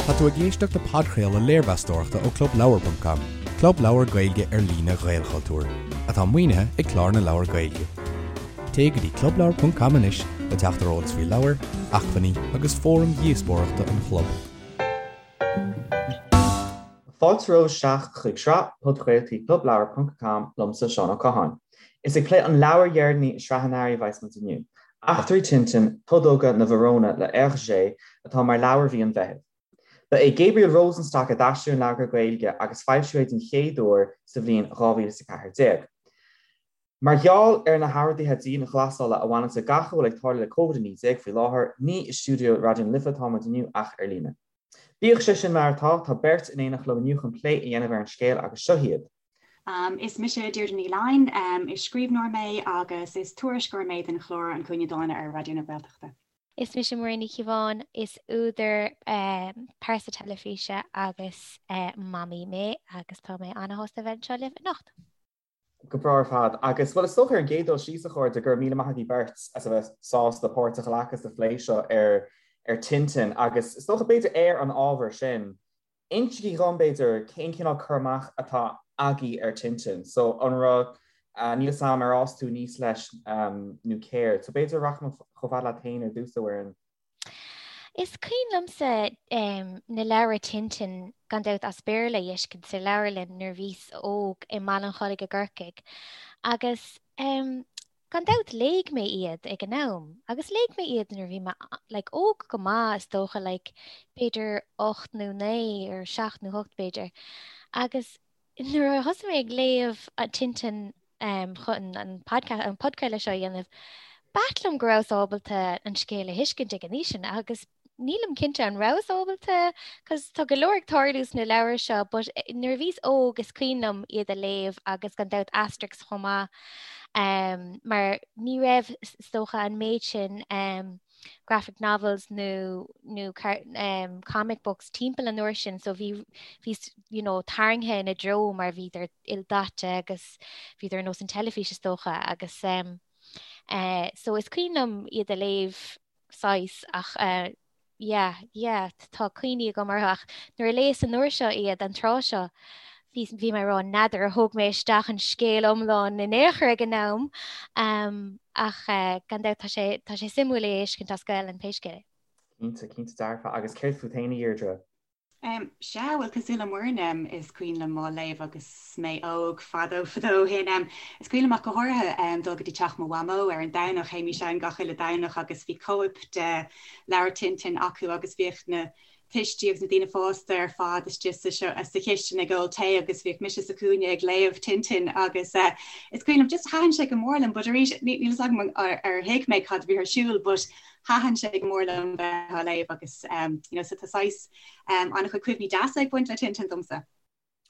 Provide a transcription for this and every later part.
Tá tú ag éisteacht le podchraoladh léirmheastóireachta ó ClubLeabhar.com, club leabhar Gaeilge ar líne Ghaelchultúir, atá maoinithe ag Clár na Leabhar Gaeilge. Téigh go dtí ClubLeabhar.com anois le teacht ar eolas faoi leabhair, acmhainní agus fóraim dhíospóireachta an chlub. Fáilte romhaibh isteach chuig sraith podchraoltaí ClubLeabhar.com liomsa Seán Ó Catháin. Is ag plé an leabhair dheireanaí i sraith an earraigh a bheas muid inniu. Eachtraí Tintin, Todóga na bhFarónna le Hergé atá mar leabhar mhí an Mheithimh. Ba é Gabriel Rosenstock a d'aistrigh an leabhar go Gaeilge agus foilsíodh é den chéad uair sa bhliain 2014. Mar gheall ar na horduithe dianghlasála a bhaineanns le gach a bhfuil ag tarlú le Covid-19 faoi láthair, ní i stiúideo Raidió na Life atá muid inniu ach ar líne. Bíodh sé sin mar atá, tá beirt in éineacht liom inniu chun plé a dhéanamh ar an scéal agus seo hiad. Is mise Deirdre Ní Fhloinn, is scríbhneoir mé agus is tuairisceoir mé don chlár An Cúinne Dána ar Raidió na Gaeltachta. Is mise Muireann Ní Chíobháin, is údar, pearsa teilifíse agus mamaí mé agus tá mé an-shásta a bheith anseo libh anocht. Go breá ar fad. Agus, bhuel, is dócha ar an gcéad dul síos, a chairde, go raibh míle maith agaibh beirt as a bheith sásta páirt a ghlacadh sa phlé seo ar ar Tintin agus is dócha b'fhéidir ar an ábhar sin, Insígí dhom, b'fhéidir, cén cineál cur amach atá agaibh ar Tintin. So, an raibh, níl 'fhios a'm ar fhás tú aníos leis nó céard. So, b'fhéidir rachaidh mé chomh fada leat féin ar dtús, a Mhuireann. Is cuimhin liomsa na leabhair Tintin, gan dabht as Béarla, a fheiscint sa leabharlann nuair a bhíos óg i mBaile an Chollaigh i gCorcaigh. Agus Gan dabht léigh mé iad ag an am agus léigh mé iad nuair a bhí mé like óg go maith is dócha like b'fhéidir 8 nó 9 or 7 nó 8 b'fhéidir. Agus nuair a thosaigh mé ag léamh Tintin um, chun an podcast an podchraoladh seo a dhéanamh, b'ait liom go rabhas ábalta an scéal a thuiscint ag an aois sin agus nílim cinnte an rabhas ábalta cos tá go leor ag tarlú sna leabhair seo but eh, nuair a bhíos óg is cuimhin liom iad a léamh agus gan dabht Asterix chomh maith um, mar ní raibh is dócha an méid sin um, graphic novels nó nó um, comic books timpeall an uair sin so bhí bhí you know, tarraingthe ina dtreo mar bhíodar ildaite agus bhíodar ar nós an teilifís is dócha agus um, uh, so is cuimhin liom iad a léamh saghas ach yeah yeah tá cuimhní agam orthu ach nuair a léas an uair seo iad an tráth seo bhí bhí mé ag rá n'fheadar ar thóg mé isteach an scéal iomlán in aon chor ag an am um, ach uh, gan dabht tá sé tá sé suimiúil é a fheiscint as Gaelainn pé scéal é. Cinnte, cinnte dearfa agus céard fút féin a Dheirdre? Sea, bhuel, cosúil le Muireann, is cuimhin liom á léamh agus mé óg, fadó fadó ó shin. Is cuimhin liom ach go háirithe dul go dtí teach mo mhamó ar an Domhnach, théimis ann gach uile Domhnach agus bhí cóip de leabhar Tintin acu agus bhíodh na tuistí agus na daoine fásta ar fad istigh sa sa chistin ag ól tae agus bhíodh mise sa chúinne ag léamh Tintin agus is cuimhin liom just thaitin sé go mór liom but arís níl fhios agam ar thuig mé cad a bhí ar siúl but Thaitin sé go mór liom bheith á léamh agus you know so tá saghas an-chuid cuimhní deasa ag baint le Tintin domsa.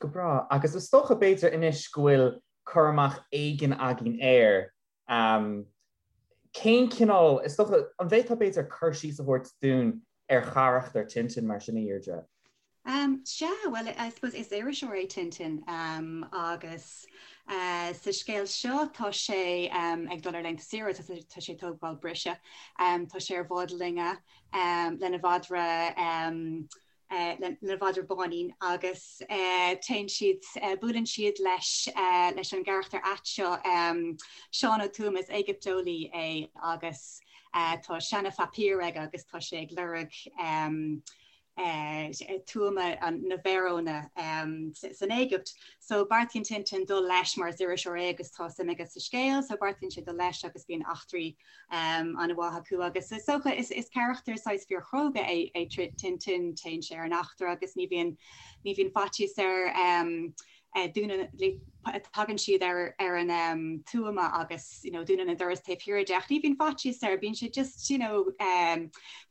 Go breá. Agus is dócha b'fhéidir anois go bhfuil cur amach éigin againn air. Cén cineál, is dócha, an bhféadfá b'fhéidir cur síos a thabhairt dúinn ar charachtar Tintin mar sin, a Dheirdre? Sea, bhuel, I suppose is iriseoir é Tintin agus sa scéal seo tá sé ag dul ar laethanta saoire, tá sé ag tógáil briseadh, tá sé ar bhád loinge lena mhadra, lena mhadra Báinín agus téann siad, buaileann siad leis leis an gcarachtar ait seo, Seán Ó Tuama, is Éigipteolaí é agus tá seana-phaipír aige agus tá sé ag lorg tuama na bhFarónna san Éigipt. So beartaíonn Tintin dul leis mar is iriseoir é agus tá suim aige sa scéal, so beartaíonn sé dul leis agus bíonn eachtraí an-mhaith acu agus is dócha is carachtar saghas fíorchróga é é Tintin, téann sé ar an eachtra agus ní bhíonn ní bhíonn faitíos air dúnann, tagann siad ar ar an tuama agus you know dúnann an doras taobh thiar de ach ní bhíonn faitíos air, bíonn sé just you know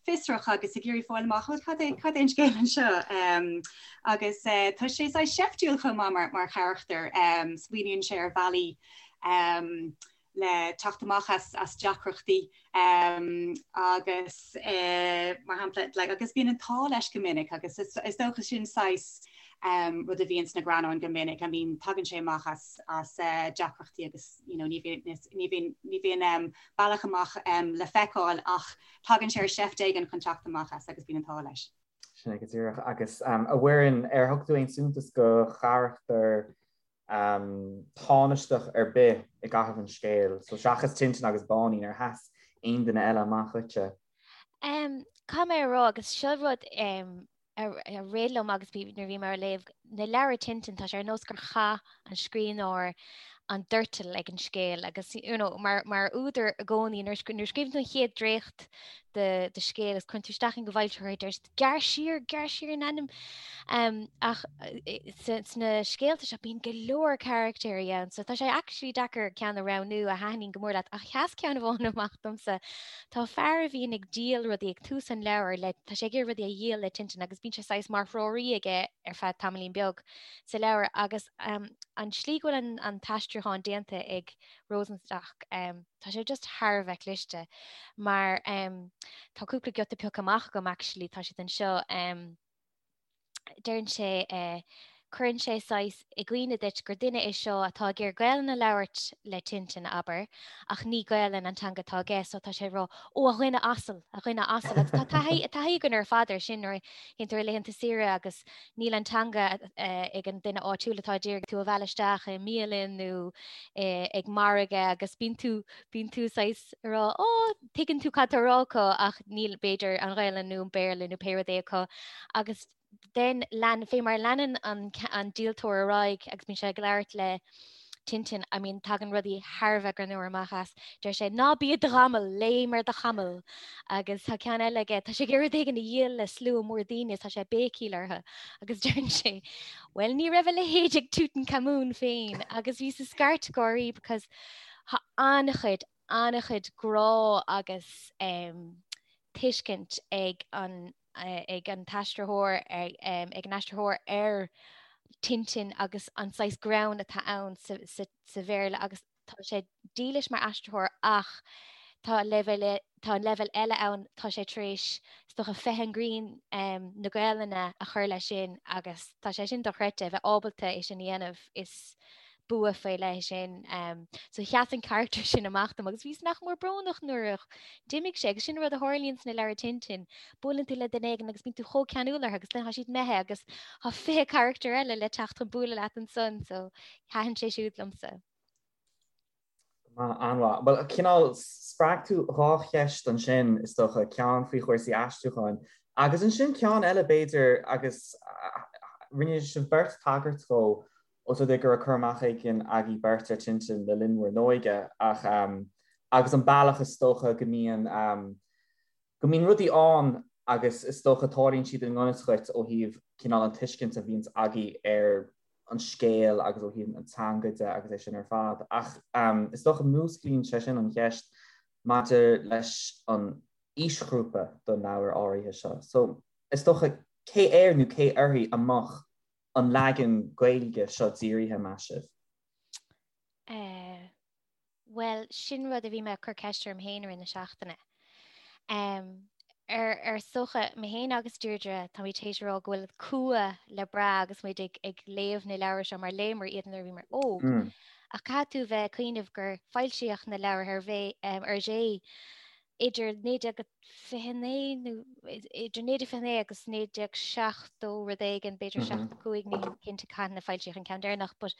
fiosrach agus ag iarraidh fáil amach cad é cad é an scéal anseo agus tá sé saghas seiftiúil chomh maith mar mar charachtar, smaoiníonn sé ar bhealaí le teacht amach as as deacrachtaí agus mar shampla like agus bíonn an t-ádh leis go minic agus is is dócha sin saghas rud a bhíonn sna greannáin go minic I mean tagann sé amach as as deacrachtaí agus you know ní bhíonn ní bhíonn ní bhíonn bealach amach le feiceáil ach tagann sé ar sheift éigin chun teacht amach as agus bíonn an t-ádh leis. Sin é go díreach. Agus a Mhuireann, ar thug tú aon suntas do charachtar tánaisteach ar bith i gcaitheamh an scéil? So seachas Tintin agus Báinín, ar sheas aon duine eile amach dhuitse? Caithfidh mé a rá, agus seo rud a rith liom agus nuair a bhí mé á léamh na leabhair Tintin, tá sé ar nós gur chaith an scríbhneoir an doirteal ag an scéal agus you know, mar, mar údar i gcónaí nuair nuair a scríobhann tú an chéad dréacht de, de scéal agus cuireann tú isteach é chuig foilsitheoir deir siad gearr siar, gearr siar in ainm. Um, ach sna scéalta seo bíonn go leor caractéirí ann, so tá sé actually deacair ceann a roghnú a thaitníonn go mór leat ach sheas ceann amháin amach domsa. Tá fear a bhíonn ag díol rudaí ag tús an leabhair le, tá sé ag iarraidh rudaí a dhíol le Tintin agus bíonn sé saghas mar threoraí aige ar feadh tamaillín beag sa leabhar agus an tslí go bhfuil an t-aistriúchán déanta ag Rosenstock, tá sé just thar a bheith cliste mar tá cúpla giota pioctha amach agam actually, tá siad anseo. Deireann sé, cuireann sé saghas i gcuimhne duit gur duine é seo atá ag iarraidh Gaelainn a labhairt le Tintin, abair, ach ní Gaelainn an teanga atá aige so tá sé ag rá, 'Ó, a dhuine asail, a dhuine asail' agus tá taithí taithí againn ar fad air sin nuair a théann tú ar laethanta saoire agus níl an teanga ag an duine áitiúil atá ag iarraidh tú a mhealladh isteach i mbialann nó ag margadh agus bíonn tú bíonn tú saghas ag rá, 'Ó, tuigeann tú cad tá á rá acu ach níl b'fhéidir an Ghaelainn nó an Béarla nó pé rud é acu agus then lean, fé mar a leanann an, an díoltóir ar aghaidh agus bíonn sé ag labhairt le Tintin, I mean tagann rudaí thar a bheith greannmhar amach as. Deir sé, ná bí i do ghamal, léim ar do chamall. Agus tá ceann eile aige, tá sé ag iarraidh rud éigin a dhíol le slua mór daoine is tá sé ag béicíl orthu. Agus deireann sé, well ní raibh a leithéid ag Tutankhamun féin agus bhíos ag scairt gáirí because tá an-chuid, an-chuid grá agus tuiscint ag an ag an t-aistritheoir ag an aistritheoir ar Tintin agus an saghas greann atá ann sa, sa, sa Bhéarla agus tá sé dílis mar aistritheoir ach tá leibhéal tá an leibhéal eile ann tá sé tar éis is dócha feithim grinn na Gaelainne a chur leis sin agus tá sé sin dochreidte a bheith ábalta é sin a dhéanamh is bua faoi leith é sin. So sheas an carachtar sin amach dom agus bhíos nach mór brónach nuair a d'imigh sé agus sin rud a tharlaíonn sna leabhair Tintin. Buaileann tú le duine éigin agus bíonn tú chomh ceanúil orthu agus then tá siad imithe agus tá 20 carachtar eile le teacht chun bualadh leat ansan so thaitin sé siúd liomsa. An-mhaith. Bhuel, cineál, spreag tú dhá cheist ansin, is dócha, ceann faoi chúrsaí aistriúcháin agus ansin ceann eile, b'fhéidir, agus rinne sibh beirt tagairt dhó, os rud é go raibh cur amach éigin agaibh beirt ar Tintin le linn bhur n-óige, ach agus an bealach is dócha go mbíonn, go mbíonn rudaí ann agus is dócha tarlaíonn siad i ngan fhios dhuit ó thaobh cineál an tuiscint a bhíonns agaibh ar an scéal agus ó thaobh an teanga de agus é sin ar fad. Ach is dócha músclaíonn sé sin an cheist maidir leis an aoisghrúpa don leabhar áirithe seo. So is dócha cé air nó cé uirthi a mbeadh an leagan Gaeilge seo dírithe, meas sibh? Eh, Bhuel, sin rud a bhí mé ag cur ceist orm féin i rith na seachtaine. Ar ar is dócha, mé féin agus Deirdre, táimid théis a rá go bhfuil cumha le brath agus muid ag ag léamh na leabhar seo mar léamar iad nuair a bhíomar óg. Ach caithfidh tú bheith ag cuimhneamh gur foilsíodh na leabhair Hergé idir 1929 nó idir 1929 agus 1970 rud éigin, b'fhéidir 75, nílim cinnte cathain a foilsíodh an ceann deireanach, but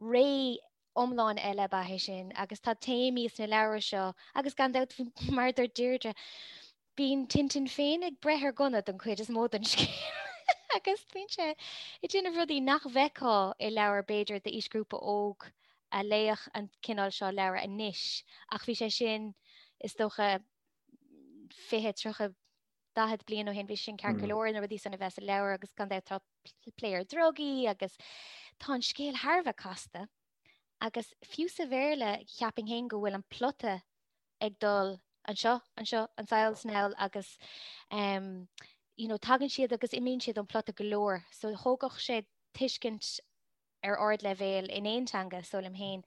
ré iomlán eile ab ea é sin agus tá téamaí sna leabhair seo agus gan dabht mar a dúirt Deirdre, bíonn Tintin féin ag breith ar ghunna don chuid is mó den scéal agus bíonn sé ag déanamh rudaí nach bhfeicfeá i leabhar b'fhéidir d'aoisghrúpa óg a léifeadh an cineál seo leabhar anois ach bhí sé sin is dócha 20, 30, 40 bliain ó shin bhí sin ceart go leor na rudaí san a bheith sa leabhar agus gan dabht tá plé ar drugaí agus tá an scéal thar a bheith casta agus fiú sa Bhéarla cheapfainn féin go bhfuil an plota ag dul anseo, anseo, anseo is anall agus um, you know, tagann siad agus imíonn siad ón plota go leor, so thógfadh sé tuiscint ar ardleibhéal in aon teanga, is dóigh liom féin.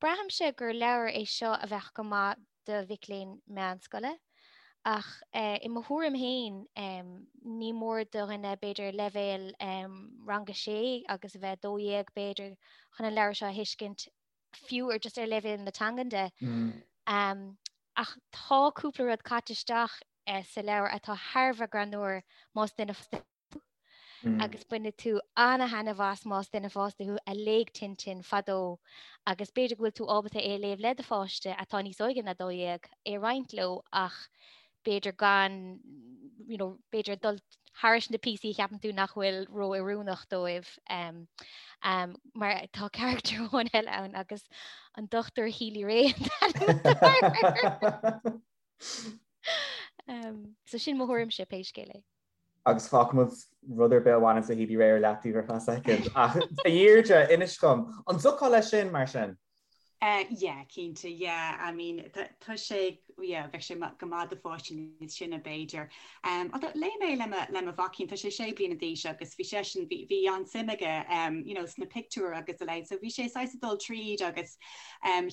Braithimse gur leabhar é seo a bheadh go maith do mhic léinn meánscoile, ach i mo thuairim féin ní mór do dhuine b'fhéidir leibhéal ranga 6 agus a bheith 12 b'fhéidir chun an leabhar seo a thuiscint, fiú ar just ar leibhéal na teangan de. Ach tá cúpla rud caite isteach. sa leabhar atá thar a bheith greannmhar más duine fásta thú agus bainfidh tú ana-thaitneamh as más duine fásta thú a léigh Tintin fadó agus b'fhéidir go bhfuil tú ábalta é a léamh le do pháiste atá níos óige ná 12, é a roinnt leo ach b'fhéidir gan, you know, b'fhéidir dul thairis na píosaí a cheapann tú nach bhfuil ró-oiriúnach dóibh um, um, mar tá character amháin eile ann agus an Dr. Healy-Rae um, so sin mo thuairimse pé scéal é. Agus fágfaimid rud ar bith a bhaineann le Healy-Rae ar leataobh ar feadh soicind. Ach a Dheirdre, inis dom, an dtiocfá leis sin mar sin? Yeah, cinnte, yeah. I mean, tá sé, yeah, bheadh sé go maith do pháistí níos sine b'fhéidir. Although léigh mé le mo, le mo mhaicín, tá sé sé bliana d'aois agus bhí seisean, bhí, bhí an-suim aige, you know, sna pictiúir agus a leithéid, so bhí sé saghas ag dul tríd agus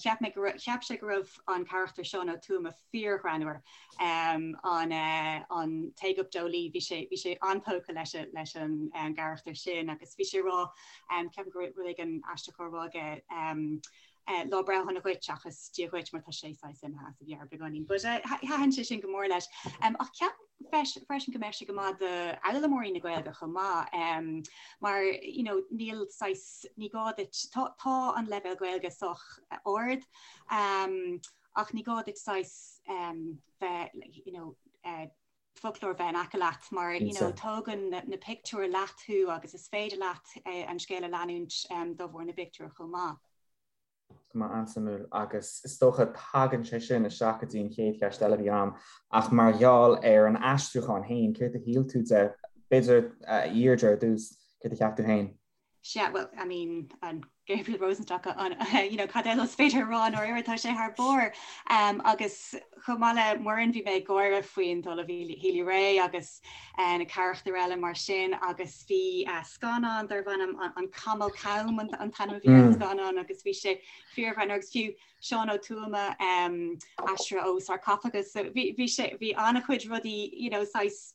cheap mé go raibh, cheap sé go raibh an carachtar Seán Ó Tuama fíorghreannmhar, an, an t-Éigipteolaí, bhí sé, bhí sé an-tógtha leis, leis an gcarachtar sin agus bhí sé ag rá, Ceapaim go raibh rud éigin aisteach á rá aige, lá breithe shona dhuit seachas Dia dhuit mar tá sé saghas imithe as a mheabhair beagáinín. But thaitin sé sin go mór leis. Ach ceapaim freisin go mbeadh sé go maith d'fhoghlaimeoirí na Gaeilge chomh maith mar you know níl saghas, ní gá duit, tá tá an leibhéal Gaeilge sách ard ach ní gá duit saghas bheith you know foclóir bheith in aice leat mar you know tógann na pictiúir leat thú agus is féidir leat an scéal a leanúint de bharr na bpictiúr chomh maith. Go maith an-suimiúil agus is dócha tagann sé sin isteach go dtí an chéad cheist eile a bhí agam ach mar gheall ar an aistriúchán féin, céard a shíl tú de, b'fhéidir a Dheirdre ar dtús, céard a cheap tú féin? Sea, bhuel, I mean, an Gabriel Rosenstock, an, you know, cad eile is féidir a rá i ndáiríre, tá sé thar barr. Um, agus chomh maith le Muireann, bhí mé ag gáire faoin Ollamh Healy-Rae agus uh, na carachtair eile mar sin, agus bhí uh, scannán darbh ainm an, an Camall Cam an, an t-ainm a bhí ar an mm. scannán agus bhí sé fíorghreannmhar agus fiú Seán Ó Tuama um, aistrithe ó Sarcophagus, so bhí, bhí sé, bhí an-chuid rudaí, you know, saghas,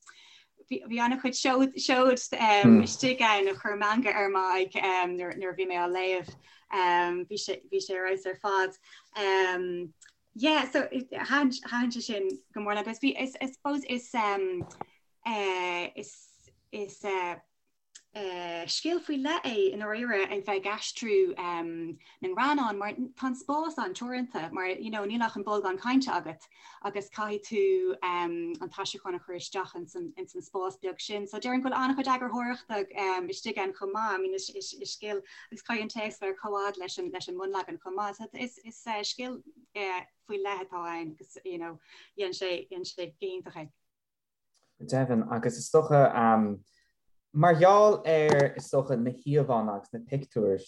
Bhí an-chuid seod istigh ann a chuir meangadh ar m'aghaidh nuair a bhí mé á léamh. Bhí sé bhí sé ar fheabhas ar fad. Yeah, so thaitin sé sin go mór liom agus bhí I suppose is is is Scil faoi leith é i ndáiríre a bheith ag aistriú na ngreannán mar tá an spás an-teoranta mar you know níl ach an bolgán cainte agat agus caithfidh tú an t-aistriúchán a chur isteach ins an ins an spás beag sin. So déarfainn go bhfuil an-chuid eagarthóireachta istigh ann chomh maith. I mean is is is scil agus caithfidh an téacs bheith ar comhfhad leis an leis an mbunleagan chomh maith. So is is scil faoi leith atá ann agus you know dhein sé dhein sé go hiontach é. Go deimhin, agus is dócha, mar gheall ar, is dócha, na híomhánna agus na pictiúir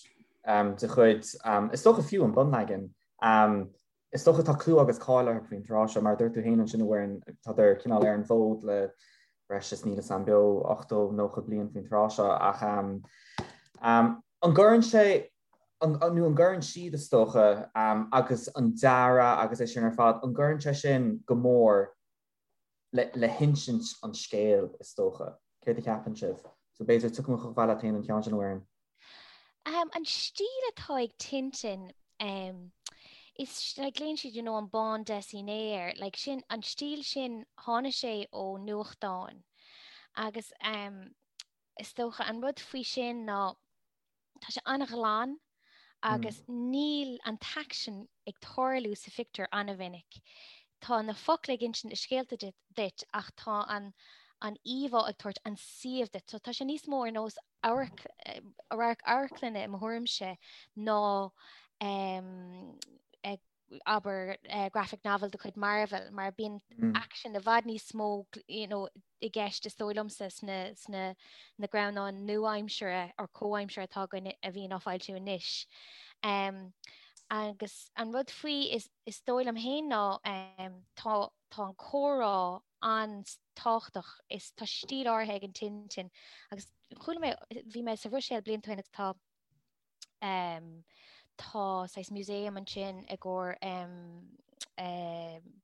de chuid, is dócha fiú an bunleagan, is dócha tá clú agus cáil orthu faoin tráth seo, mar a dúirt tú féin ansin, a Mhuireann, tádar cineál ar an bhfód le breis is níl 'fhios a'm beo 80, 90 bliain faoin tráth seo, ach an gcuireann sé, nó an gcuireann siad, is dócha, agus an dearadh agus é sin ar fad, an gcuireann sé sin go mór le hinsint an scéil, is dócha. Céard a cheapann sibh? So b'fhéidir tiocfaidh mé chomh fada leat féin an ceann sin, a Mhuireann. An stíl atá ag Tintin, is, like, glaonn siad, you know, an bande dessinée air, like, sin, an stíl sin, tháinig sé ó nuachtáin. Agus is dócha an rud faoi sin ná, Tá sé an-ghlan agus níl an t-aicsean ag tarlú sa phictiúr an-mhinic. Tá na focla ag insint na scéalta duit ach tá an an íomhá ag tabhairt an suíomh duit. So tá sé níos mó ar nós amharc radharc amharclainne i mo thuairimse ná abair, graphic novel de chuid Marvel, mar bíonn aicsean i bhfad níos mó you know, i gceist is dóigh liomsa sna, sna na greannáin nua-aimsire or comhaimsire atá againn a bhíonn á foilsiú anois. Um, agus an rud faoi is, is dóigh liom féin ná um, tá, tá an comhrá an-tábhachtach is tá stíl áirithe ag an Tintin agus chuala mé bhí mé sa Bhruiséil blianta ó shin agus tá Tá saghas museum ansin i gcomhair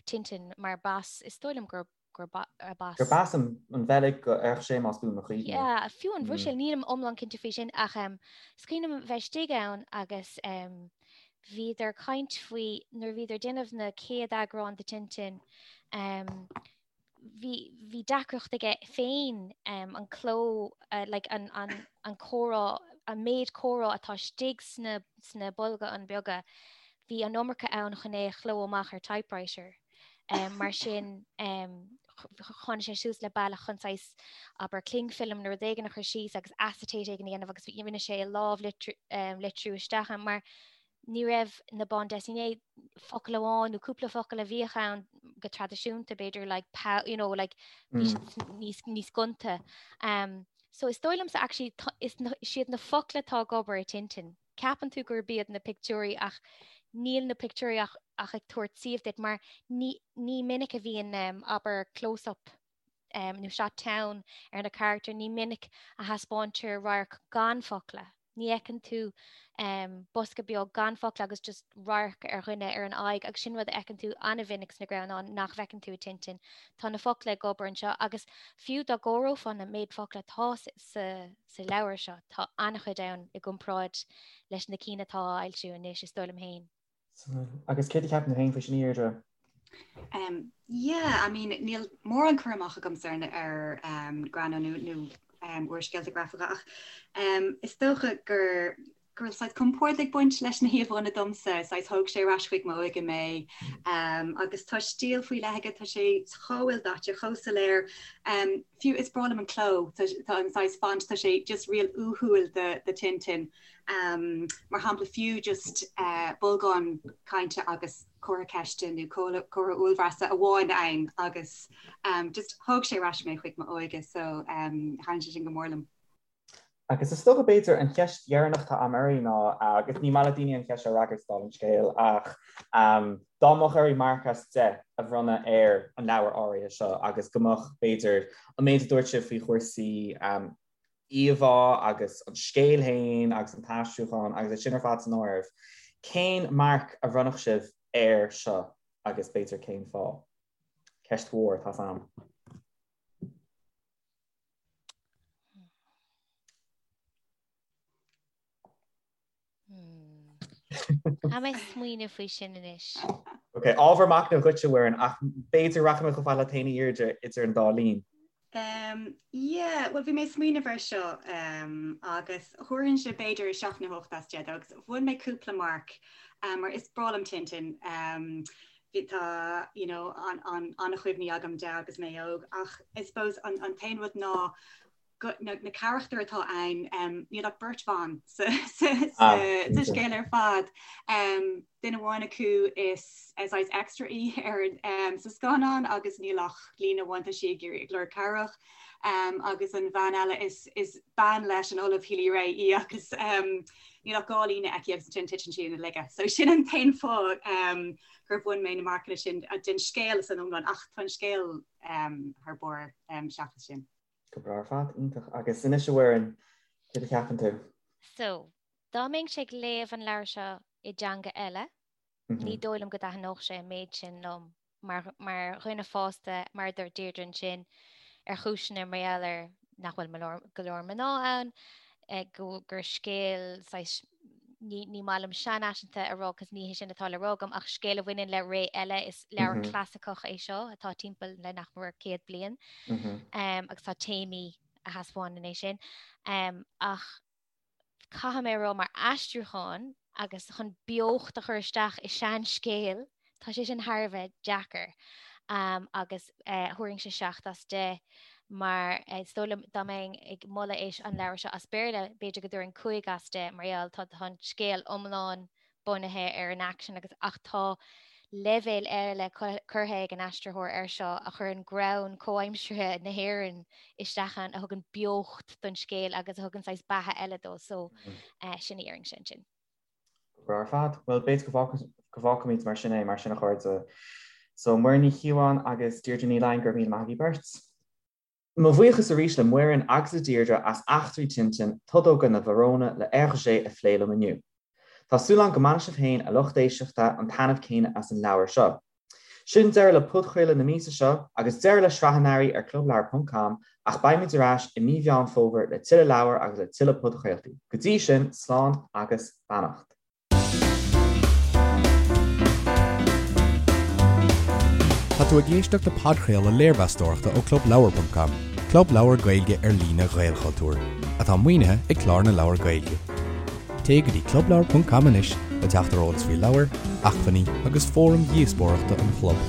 Tintin mar b'as, is dóigh liom gur b'as. Gur b'as an Bheilg go Hergé más buan mo chuimhne. Yeah, fiú an Bhruiséil, nílim iomlán cinnte faoi sin ach is cuimhin liom bheith istigh ann agus bhíodar ag caint faoi nuair a bhíodar ag déanamh na chéad eagrán de Tintin. Bhí bhí deacracht aige féin an cló like an an an comhrá an méid comhrá atá istigh sna sna bolgáin beaga bhí an iomarca ann chun é a chló amach ar typewriter. Mar sin tháinig sé suas le bealach chun saghas abair cling film nó rud éigin a chur síos agus acetate éigin a dhéanamh agus rinne sé lámhlitriú isteach ann mar ní raibh na bande dessinée focal amháin nó cúpla focal a bhíodh ann go traidisiúnta b'fhéidir like pow you know like bhí siad níos níos gonta. Um, so is dóigh liomsa actually is is iad na focla atá ag obair i Tintin. Ceapann tú gurb iad na pictiúirí ach níl na pictiúirí ach ach ag tabhairt suíomh duit mar ní ní minic a bhíonn um, abair close-up um, nó shot teann ar na carachtair, ní minic a thaispeáintear radharc gan focla. Ní fheiceann tú um, bosca beag gan focla agus just radharc ar dhuine ar an aghaidh agus sin rud a fheiceann tú an-mhinic sna greannáin nach bhfeiceann tú i Tintin. Tá na focla ag obair anseo agus fiú dá gcomhaireofá na méid focla atá sa, sa leabhar seo, tá an-chuid ann i gcomparáid leis na cinn atá á fhoilsiú anois, is dóigh liom féin. Agus céard a cheapann tú féin faoi sin, a Dheirdre? Um, yeah, I mean, níl mórán cur amach agamsa ar, ar um, greannáin nó, nó um, úrscéalta grafacha ach um, is dócha gur go raibh saghas compord ag baint leis na híomhánna domsa, saghas thóg sé ar ais chuig m'óige mé um, agus tá stíl faoi leith aige, tá sé chomh ildaite, chomh soiléir. Um, fiú is breá liom an cló, tá, tá an saghas font, tá sé just real uathúil do, do Tintin. Mar shampla, fiú just bolgán cainte agus comhartha ceiste nó comhartha uaillbhreasa amháin ann agus just thóg sé ar ais mé chuig m'óige so thaitin sé sin go mór liom. Agus is dócha b'fhéidir an cheist dheireanach atá agam oraibh ná, agus ní maith le daoine an cheist seo a fhreagairt dála an scéil, ach dá mbeadh oraibh marc as 10 a bhronnadh ar an leabhar áirithe seo agus go mbeadh b'fhéidir an méid a dúirt sibh faoi chúrsaí íomhá agus an scéal féin agus an t-aistriúchán agus é sin ar fad san áireamh, cén marc a bhronnfadh sibh air seo agus b'fhéidir cén fáth? Ceist mhór, tá's a'm. Caithfidh mé smaoineamh faoi sin anois. Ok, ábhar machnaimh dhuit, a Mhuireann, ach b'fhéidir rachaidh mé chomh fada leat féin a Dheirdre idir an dá linn. Um, yeah, well bhí mé ag smaoineamh air seo um, agus thabharfainnse b'fhéidir 7 nó 8 as 10 dó agus bhain mé cúpla marc um, mar is breá liom Tintin. Um, bhí tá you know, an, an, an-chuimhní agam de agus mé óg ach I suppose an, an t-aon rud ná go, na, na carachtair atá ann, um, níl ach beirt bhan sa, sa, sa, ah, sa scéal ar fad. Um, duine amháin acu is saghas extra í ar um, sa scannán agus níl ach líne amháin tá sí ag iarraidh ag lorg cabhrach. Um, agus an bhean eile is, is bean leis an Ollamh Healy-Rae í agus um, níl ach dhá líne aici agus ansin titeann sí ina laige. So sin an t-aon fáth um, gur bhain mé na marcanna sin den scéal san iomlán ach tá an scéal um, thar barr um, seachas sin. Go breá ar fad, iontach. Agus anois a Mhuireann, céard a cheapann tú? So, dá mbeinnse ag léamh an leabhair seo i dteanga eile, ní dóigh liom go dtaitneodh sé an méid sin liom mar, mar dhuine fásta, mar a dúirt Deirdre ansin, ar chúiseanna mar gheall ar nach bhfuil go leor mná ann, go, gur scéal saghas ní, ní maith liom seanfhaiseanta a rá cos ní hé sin atá le rá agam ach scéal a bhaineann le ré eile is leabhar clasaiceach é seo atá timpeall le nach mór 100 bliain um, agus tá téamaí a thaispeánann é sin. Um, ach caithfidh mé a rá mar aistriúchán agus chun beocht a chur isteach i seanscéal, Tá sé sin thar a bheith deacair agus thabharfainnse 7 as 10 mar is dóigh liom dá mbeinn ag moladh é an leabhar seo as Béarla b'fhéidir go dtabharfainn 5 as 10 mar gheall tá tá an scéal iomlán bunaithe ar an aicsean agus ach tá leibhéal eile curtha ag an aistritheoir air seo a chuireann greann comhaimseartha na hÉireann isteach ann a thugann beocht don scéal agus a thugann saghas beatha eile dó so sin a dhéarfainnse ansin. Go breá ar fad. Bhuel, b'fhéidir go bhfágfaimid mar sin é, mar sin a chairde. So, Muireann Ní Chíobháin agus Deirdre Ní Laighin, go raibh míle maith agaibh beirt. Mo bhuíochas arís le Muireann agus le Deirdre as Eachtraí Tintin, Todóga na bhFarónna le Hergé a phlé liom inniu. Tá súil agam go mbainfidh sibh féin, a lucht éisteachta, an taitneamh céanna as an leabhar seo. Sin deireadh le podchraoladh na míosa seo agus deireadh le sraith an earraigh ar clubleabhar ponc com ach beimid ar ais i mí Mheán Fómhair le tuilleadh leabhar agus le tuilleadh podchraoltaí. Go dtí sin, slán agus beannacht. Tá tú ag éisteacht le podchraoladh léirmheastóireachta ó ClubLeabhar.com, club leabhar Gaeilge ar líne Ghaelchultúir, atá maoinithe ag Clár na Leabhar Gaeilge. Téigh go dtí clubleabhar.com anois le teacht ar eolas faoi leabhair, acmhainní agus fóraim dhíospóireachta an chlub.